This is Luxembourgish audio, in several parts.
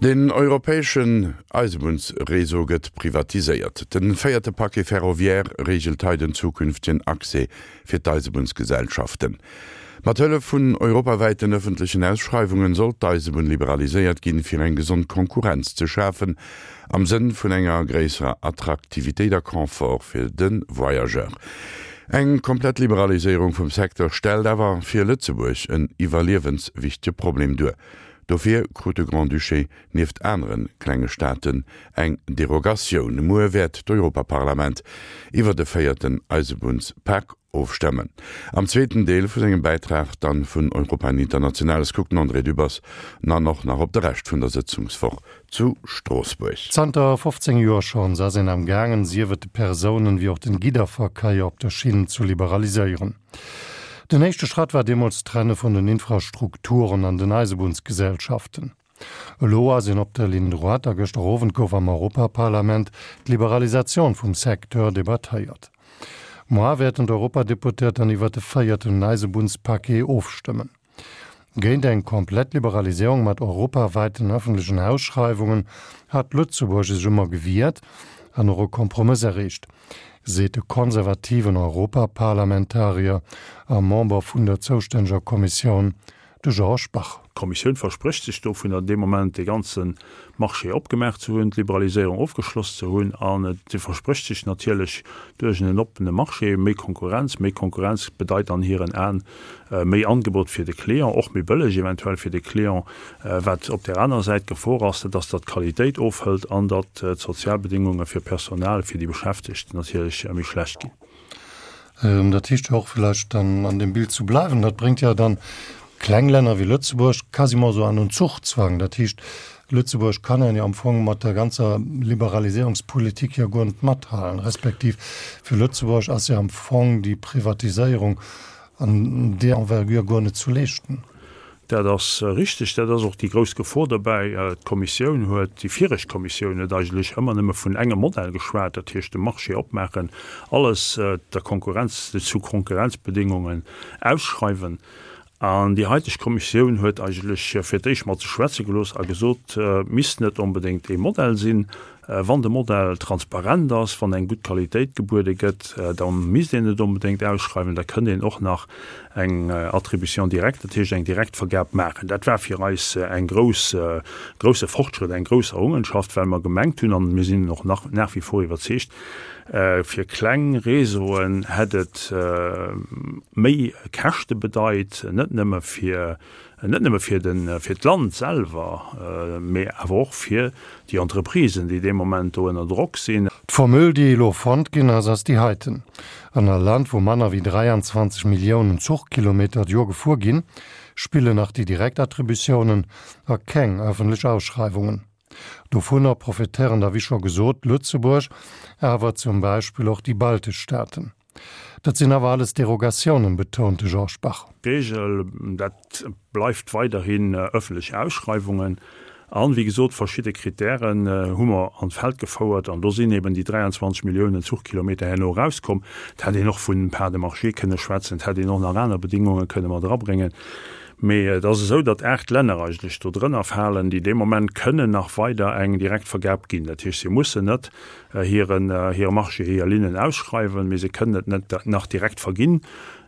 Den europäeschen Eisebunnsreseau gëtt privatiséiert. Den véierte Paquet ferroviaire reegelt hei den zukünftegen Accès fir d'Eisebunnsgesellschaften. Mat Hëllef vun europawäiten ëffentlechen Ausschreiwungen soll d'Eisebunn liberaliséiert ginn, fir eng gesond Konkurrenz ze schafen am Sënn vun enger gréisserer Attraktivitéit a Confort fir de Voyageur. Eng komplett Liberaliséierung vum Secteur stellt awer fir Lëtzebuerg en iwwerliewenswichtege Problem duer. Dofir krut de Grand-Duché nieft anere klenge Staaten eng Derogatioun. Muer wäert d'Europaparlament iwwer de véierten Eisebunnspak ofstëmmen. Am zweeten Deel vu sengem Bäitrag dann vun Europa en Internationales kuckt den André Dübbers nan och nach op de Rescht vun der Sëtzungswoch zu Stroossbuerg. Zanter 15 Joer schonns ass een am gaangen, sief et de Persounen wéi och den Gidderverkéier op der Schinn zu liberaliséieren. Den éischte Schratt war deemools d'Trenne vun den Infrastrukturen an den Eisebunnsgesellschaften. Elo ass een op der Ligne droite a gëschter Owend gouf am Europaparlament d'Liberalisatioun vum Secteur debattéiert. Moar wäerten d'Europadeputéiert dann iwwert de véierten Eisebunnspaquet ofstëmmen. Géint eng komplett Liberaliséierung mat europaweiten ëffentlechen Ausschreiwungen hat Lëtzebuerg sech ëmmer gewiert an och e Kompromëss erreecht, seet de konservativen Europaparlamentarier a Member vun der zoustänneger Kommissioun, de Georges Bach. D'Kommissioun versprécht sech dovunner, dee Moment dee ganze Marché opgemaach ze hunn, d'Liberaliséierung ofgeschloss ze hunn. An se versprécht sech natierlech duerch en oppene Marché méi Konkurrenz. Méi Konkurrenz bedeit an hiren Aen méi Angebot fir de Client, och méi bëlleg eventuell fir de Client. Wat op där anerer Säit d'Gefor ass, dat ass, datt d'Qualitéit ofhëlt an datt d'Sozialbedéngunge fir d'Personal, fir déi Beschäftegt natierlech méi schlecht ginn. Dat heescht jo och, vläicht dann an deem Bild zu bleiwen, dat bréngt jo dann kleng Länner wéi Lëtzebuerg quasiment esou an en Zuchzwang. Dat heescht, Lëtzebuerg kann jo am Fong mat der ganzer Liberaliséierungspolitik jo guer net mathalen, respektiv fir Lëtzebuerg ass jo am Fong déi Privatiséierung an där Envergure guer net zu leeschten. Dat ass richteg. Dat ass och déi grouss Gefor dobäi. D'Kommissioun huet, déi viregt Kommissioun huet eigentlech ëmmer nëmme vun engem Modell geschwat, dat heescht de Marché opmaachen, alles der Konkurrenz, zu Konkurrenzbedingungen ausschreiwen. An déi haiteg Kommissioun huet eigentlech fir d'éischt mat sech schwätze gelooss a gesot, et misst net onbedéngt ee Modell sinn, Wann de Modell transparent ass, wann eng gutt Qualitéit gebuede gëtt, da misst een net onbedéngt ausschreiwen, da kënnt een och nach eng Attribution directe, dat heescht eng Direktvergab maachen. Dat war fir eis eng grouss, grousse Fortschrëtt, eng grouss Errungenschaft, well mer gemengt hunn, an mir sinn och nach nach wie vor iwwerzeegt, fir kleng Réseauen hätt et méi Käschte bedeit, net nëmme fir Net nëmme fir de, fir d'Land selwer, mee awer och fir déi Entreprisen, déi dee Moment do ënner Drock sinn. D'Formule, déi elo fonnt ginn ass, ass déi heiten, An a Land, wou manner wéi 23 Milliounen Zuchkilometer d'Joer gefuer ginn, spillen nach déi direkt Attributiounen a keng ëffentlech Ausschreiwungen. Dovunner profitéieren da wéi scho gesot Lëtzebuerg, awer zum Beispill och déi baltesch Staaten. Dat sinn awer alles Derogatiounen, betount de Georges Bach. D'Regel, dat bleift weiderhin ëffentlech Ausschreiwungen. An, wéi gesot, verschidde Kritären hu mer an d'Feld gefouert an do sinn eben déi 23 Milliounen Zuchkilometer herno erauskomm. Et hätt een och vun Parts de marché kënne schwätzen, et hätt een och nach aner Bedingunge kënne mat erabréngen. Mee et ass esou, datt 8 Länner eigentlech do drënner falen, déi dee Moment kënnen nach weider eng Direktvergab ginn. Dat heescht, si mussen net hiren, hire Marché, hir Linnen ausschreiwen, mee se kënnen et net nach direkt verginn.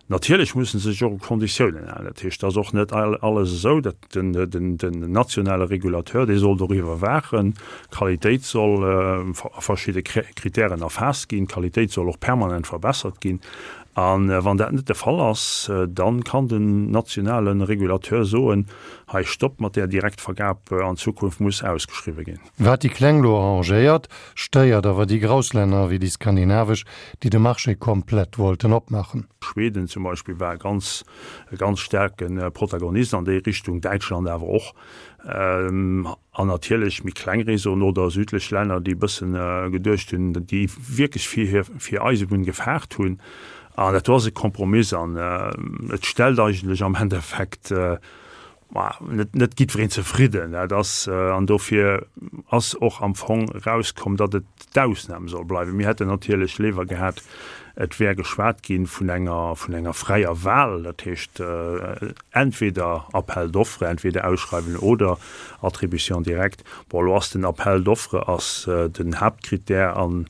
Natierlech mussen se sech och u Konditiounen halen. Dat heescht, et ass och net alles esou, datt den, den, den nationale Regulateur, dee soll doriwwer waachen, d'Qualitéit soll a verschidde Kritären erfaasst ginn, d'Qualitéit soll och permanent verbessert ginn. A wann dat net de Fall ass, da kann den nationale Regulateur soen, hei Stopp mat där Direktvergab, an Zukunft muss ausgeschriwwe ginn. Wat déi Kleng lo arrangéiert, stéiert awer déi grouss Länner wéi déi skandinavesch, déi de Marché komplett wollten opmaachen. Schweden zum Beispill war e ganz, e ganz staarke Protagonist an déi Richtung, Däitschland awer och. An natierlech méi kleng Réseauen oder südlech Länner, déi e bësse geduecht hunn, déi wierklech fir hir, fir Eisebunn gefaart hunn. An dat do ass e Kompromiss an et stellt eigentlech am Endeffekt. Ma net, net jiddwereen zefridden. Dat ass, an dofir ass och am Fong erauskomm, datt et d'Ausnam soll bleiwen. Mir hätten natierlech léiwer gehat, et wär geschwat gi vun enger, vun enger fräier Wahl, dat heescht entweder Appel d'offres, entweder Ausschreiwen oder Attribution directe. Bon, elo ass den Appel d'offres ass den Haaptkrittär an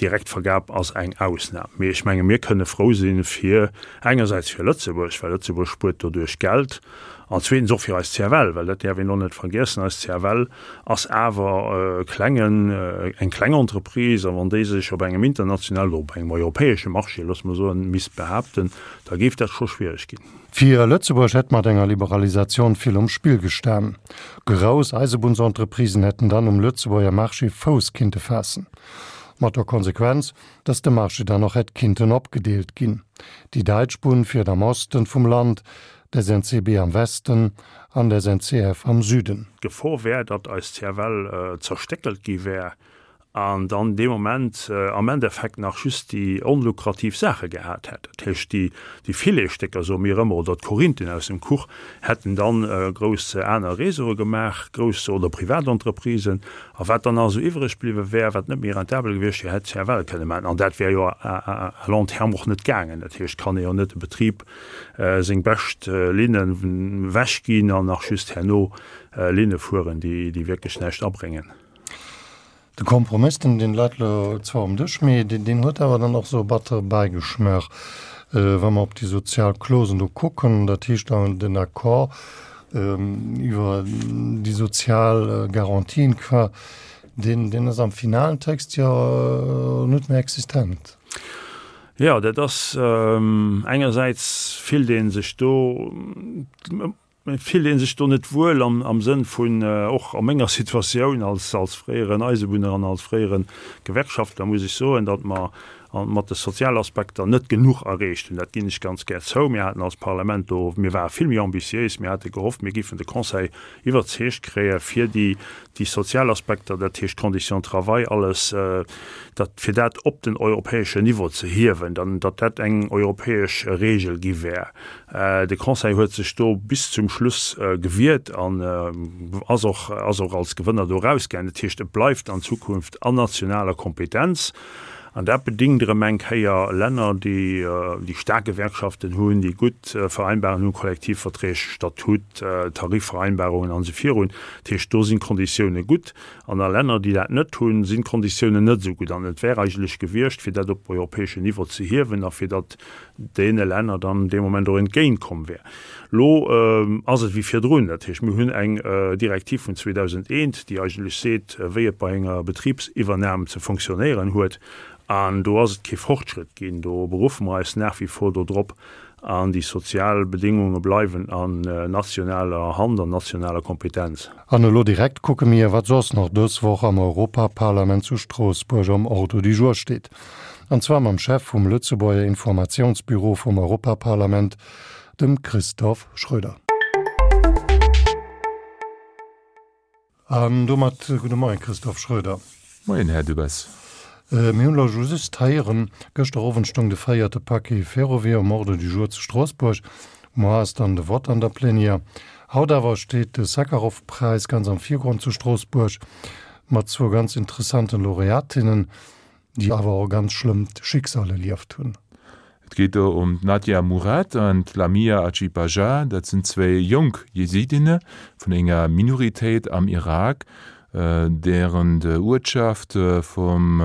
d'Direktvergab ass eng Ausnam. Mee ech menge mir kënne frou si fir engersäits fir Lëtzebuerg, well Lëtzebuerg spuert doduerch Geld, an zweetens och fir eis CFL, well dat däerf een och net vergiessen, eis CFL ass awer e klengen, eng kleng Entreprise, a wann déi sech op engem internationalen oder op engem europäesche Marché, loosse mer soen, misst behaapten, da géif dat scho schwierig ginn. Fir Lëtzebuerg hätt mat enger Liberalisatioun vill um Spill gestan. Grouss Eisebunnsentreprisen hätten dann um Lëtzebuerger Marché Fouss kinnte faassen. Mat der Konsequenz, datt de Marché dann och hätt kinnten opgedeelt ginn. Déi däitsch Bunn fiert am Osten vum Land, d'SNCB am Westen an d'SNCF am Süden. D'Gefor wär, datt eis CFL zerstéckelt gi wär an dann dee Moment am Endeffekt nach just déi onlukrativ Saache gehat hätt. Dat heescht, déi déi Filetsstécker, soe mir ëmmer, oder d'Korinthen aus dem Kuch hätten dann grouss aner Réseaue gemaach, grouss oder privat Entreprisen. A wat dann nach esou iwwreg bliwwe wär, wat net méi rentabel gewiescht wier, hätt d'CFL kënne maachen. An dat wär jo à long terme och net gaangen. Dat heescht, kann ee jo net e Betrib seng bescht Linnen wechginn an nach just herno Linne fueren, déi wierklech näischt abréngen. De Kompromiss, deen deen leit elo zwar um Dësch, mee deen huet awer dann och esou e battere Bäigeschmaach, wa mer op déi sozial Clausen do kucken, dat heescht dann den Accord iwwer déi sozial Garantien qua, deen deen ass am finalen Text jo net méi existent. Jo, dat ass engersäits fillt ee sech do, Et fillt ee sech do net wuel am Sënn vun, och a menger Situatioun als fréieren Eisebunner an als fréiere Gewerkschaftler muss ech soen, datt mer mat de Sozialaspekter net genuch erreecht hunn. Dat ginn ech ganz gär zou. Mir haten als Parlament do, mir ware vill méi ambitiéis, mir hate gehofft, mir géifen de Conseil iwwerzeegt kréie fir déi déi sozial Aspekter, dat heescht d'Conditions de travail, alles dat, fir dat op den europäeschen Niveau ze hiewen, dann datt dat eng europäesch Regel gi wär. De Conseil huet sech do bis zum Schluss gewiert an ass och, ass och als Gewënner do erausgaangen. Dat heescht, et bleift an Zukunft an nationaler Kompetenz. An dat bedingt erëm eng Kéier Länner, déi, déi staark Gewerkschaften hunn, déi gutt Vereinbarungen hunn, Kollektivverträg, Statut, Tarifvereinbarungen an esou virun. Dat heescht, do sinn d'Konditioune gutt. An a Länner, déi dat net hunn, sinn d'Konditiounen net esou gutt. An et wär eigentlech gewiescht, fir dat op europäeschen Niveau ze hiewen a fir datt deene Länner dann dee Moment och entgéintkomm wär. Elo ass et wéi virdrun, dat heescht, mir hunn eng Direktiv vun 2001, déi eigentlech seet, wéi et bei enger Betribsiwwernam ze fonctionnéieren huet, an do ass et kee Fortschritt ginn. Do beruffe mer eis nach wie vor dodrop an déi sozial Bedéngunge bleiwen an nationaler Hand, an nationaler Kompetenz. An elo direkt kucke mir, wat soss nach dës Woch am Europaparlament zu Stroossbuerg am Ordre du jour steet. An zwar mam Chef vum Lëtzebuerger Informatiounsbüro vum Europaparlament, dem Christophe Schröder. An domat gudde Moien, Christophe Schröder. Moien, Här Dubes. Mir hunn elo just héieren, gëschter Owend stoung de véierte Paquet Ferroviaire um Ordre du jour zu Stroossbuerg. Muer ass dann de Vott an der Plenière. Haut awer steet de Sakharov-Präis ganz am Virgrond zu Stroossbuerg, mat zwou ganz interessanten Laureatinnen, déi awer och e ganz schlëmmt Schicksal erlieft hunn. Et geet do ëm d'Nadia Murad an d'Lamia Ajibaja. Dat sinn zwéi jonk Jesidinne vun enger Minoritéit am Irak, dären Uertschaft vum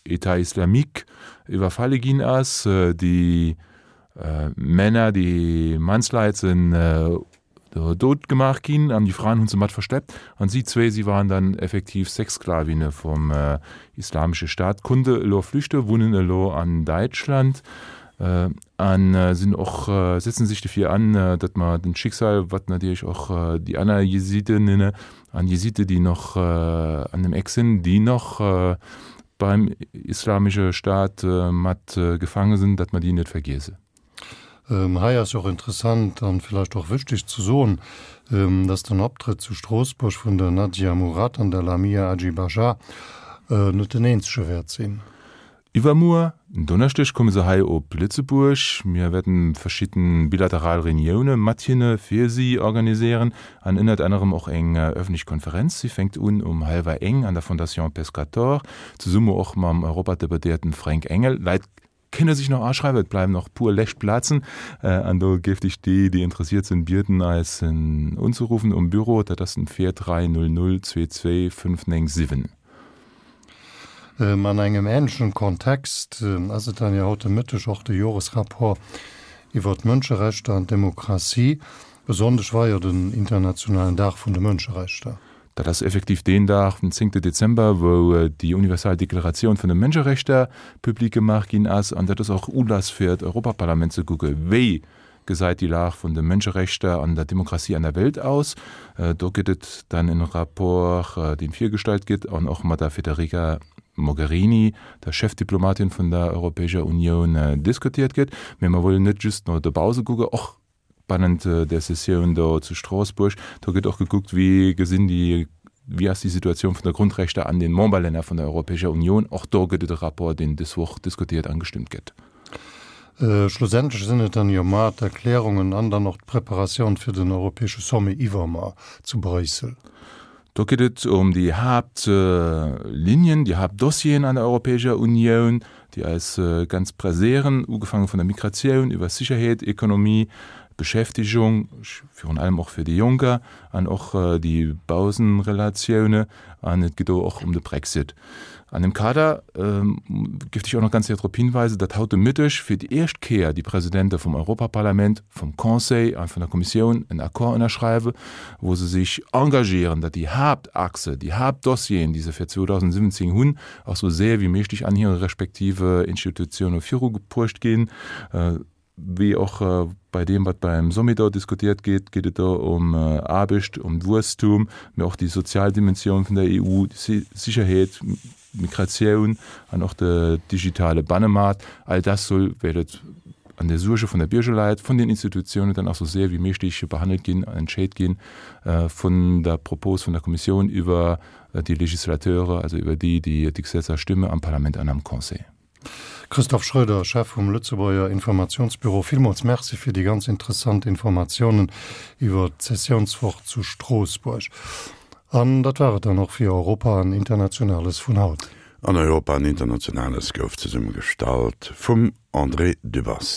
Etat islamique iwwerfalle ginn ass. Déi Männer, déi Mannsleit sinn dout gemaach ginn an déi Fraen hunn se mat verschleppt an si zwéi, si waren dann effektiv Sexsklavinne vum Islamesche Staat, konnte elo flüchte, wunnen elo an Däitschland an sinn och, setzen sech dofir an, datt mer den Schicksal, wat natierlech och déi aner Jesidinnen an Jeside, déi nach an dem Eck sinn, déi nach beim Islamesche Staat mat gefaange sinn, datt mer déi net vergiesse. Hei ass jo och interessant an villäicht och wichteg ze soen, dass den Optrëtt zu Stroossbuerg vun der Nadia Murad an der Lamia Ajibaja net den eenzege wäert sinn. Iwwermuer, en Donneschdeg, komme se hei op Lëtzebuerg. Mir wäerten verschidden bilateral Reunioune mat hinne fir si organiséieren an ënnert anerem och eng ëffentlech Konferenz. Si fänkt un um hallwer eng an der Fondation Pescator, zesumme och mam Europadeputéierten Fränk Engel. Leit kënne sech nach aschreiwen, et bleiwen nach puer lescht Plazen an do géif ech déi, déi interessiert sinn, bieden eis unzeruffen um Büro, dat ass den 43 00 22 597. An engem änlechen Kontext ass et dann jo haut de Mëtteg och de Joresrapport iwwer d'Mënscherechter an d'Demokratie. E Sonndeg war jo den internationalen Dag vun de Mënscherechter. Dat ass effektiv deen Dag, den zéngte Dezember, wou déi universal Deklaratioun vun de Mënscherechter public gemaach ginn ass. An dat ass och Ulass fir d'Europaparlament ze kucke wéi gesäit déi Lag vun de Mënscherechter an der Demokratie an der Welt aus. Do gëtt et dann en Rapport, deen virgestallt gëtt an och mat der Federica Mogherini, der Chefdiplomatin vun der Europäescher Unioun, diskutiert gëtt. Mee mer wëllen net just no dobause kucken, och bannent där Sessioun do zu Stroossbuerg. Do gëtt och gekuckt, wéi gesinn déi, wéi ass déi Situatioun vun der Grundrechter an den Memberlänner vun der Europäescher Unioun. Och do gëtt et e Rapport, deen dës Woch diskutiert an gestëmmt gëtt. Schlussendlech sinn et dann jo mar d'Erklärungen an dann och d'Preparatioun fir den europäesche Sommet iwwermar zu Bréissel. Do geet et ëm déi Haaptlinien, déi Haaptdossieren an der Europäescher Unioun, déi eis ganz presséieren, ugefaange vun der Migratioun iwwer Sicherheet, Ekonomie, Beschäftigung, virun allem och fir déi Jonker, an och déi Bausenrelatioune. An et geet do och ëm de Brexit. An deem Kader géif ech och nach ganz séier drop hinweisen, datt haut de Mëtteg fir déi éischt Kéier déi Presidente vum Europaparlament, vum Conseil a vun der Kommissioun en Accord ënnerschreiwen, wou se sech engagieren, datt déi Haaptachse, déi Haaptdossieren, déi se fir 2017 hunn, och sou séier wéi méiglech an hire respektive Institutioune virubruecht ginn. Wéi och bei deem, wat beim Sommet do diskutiert gétt, geet et do ëm Aarbecht, ëm Wuesstum, mee och déi sozial Dimensioun vun der EU, Sicherheet, Migratioun an och de digitale Bannemaart. All dat soll, wéi et an der Suerge vun der Bierger läit, vun den Institutiounen dann och esou séier wéi méiglech behandelt ginn an entscheet ginn, vun der Propos vun der Kommissioun iwwer déi Législateure, also iwwer déi, déi d'Gesetzer stëmme am Parlament an am Conseil. Christophe Schroeder, Chef vum Lëtzebuerger Informationsbüro, villmools Merci fir déi ganz interessant Informatiounen iwwer d'Sessiounswoch zu Stroossbuerg. An dat war et dann och fir Europa an Internationales vun haut. An Europa an Internationales gouf zesummegestallt vum André Dübbers.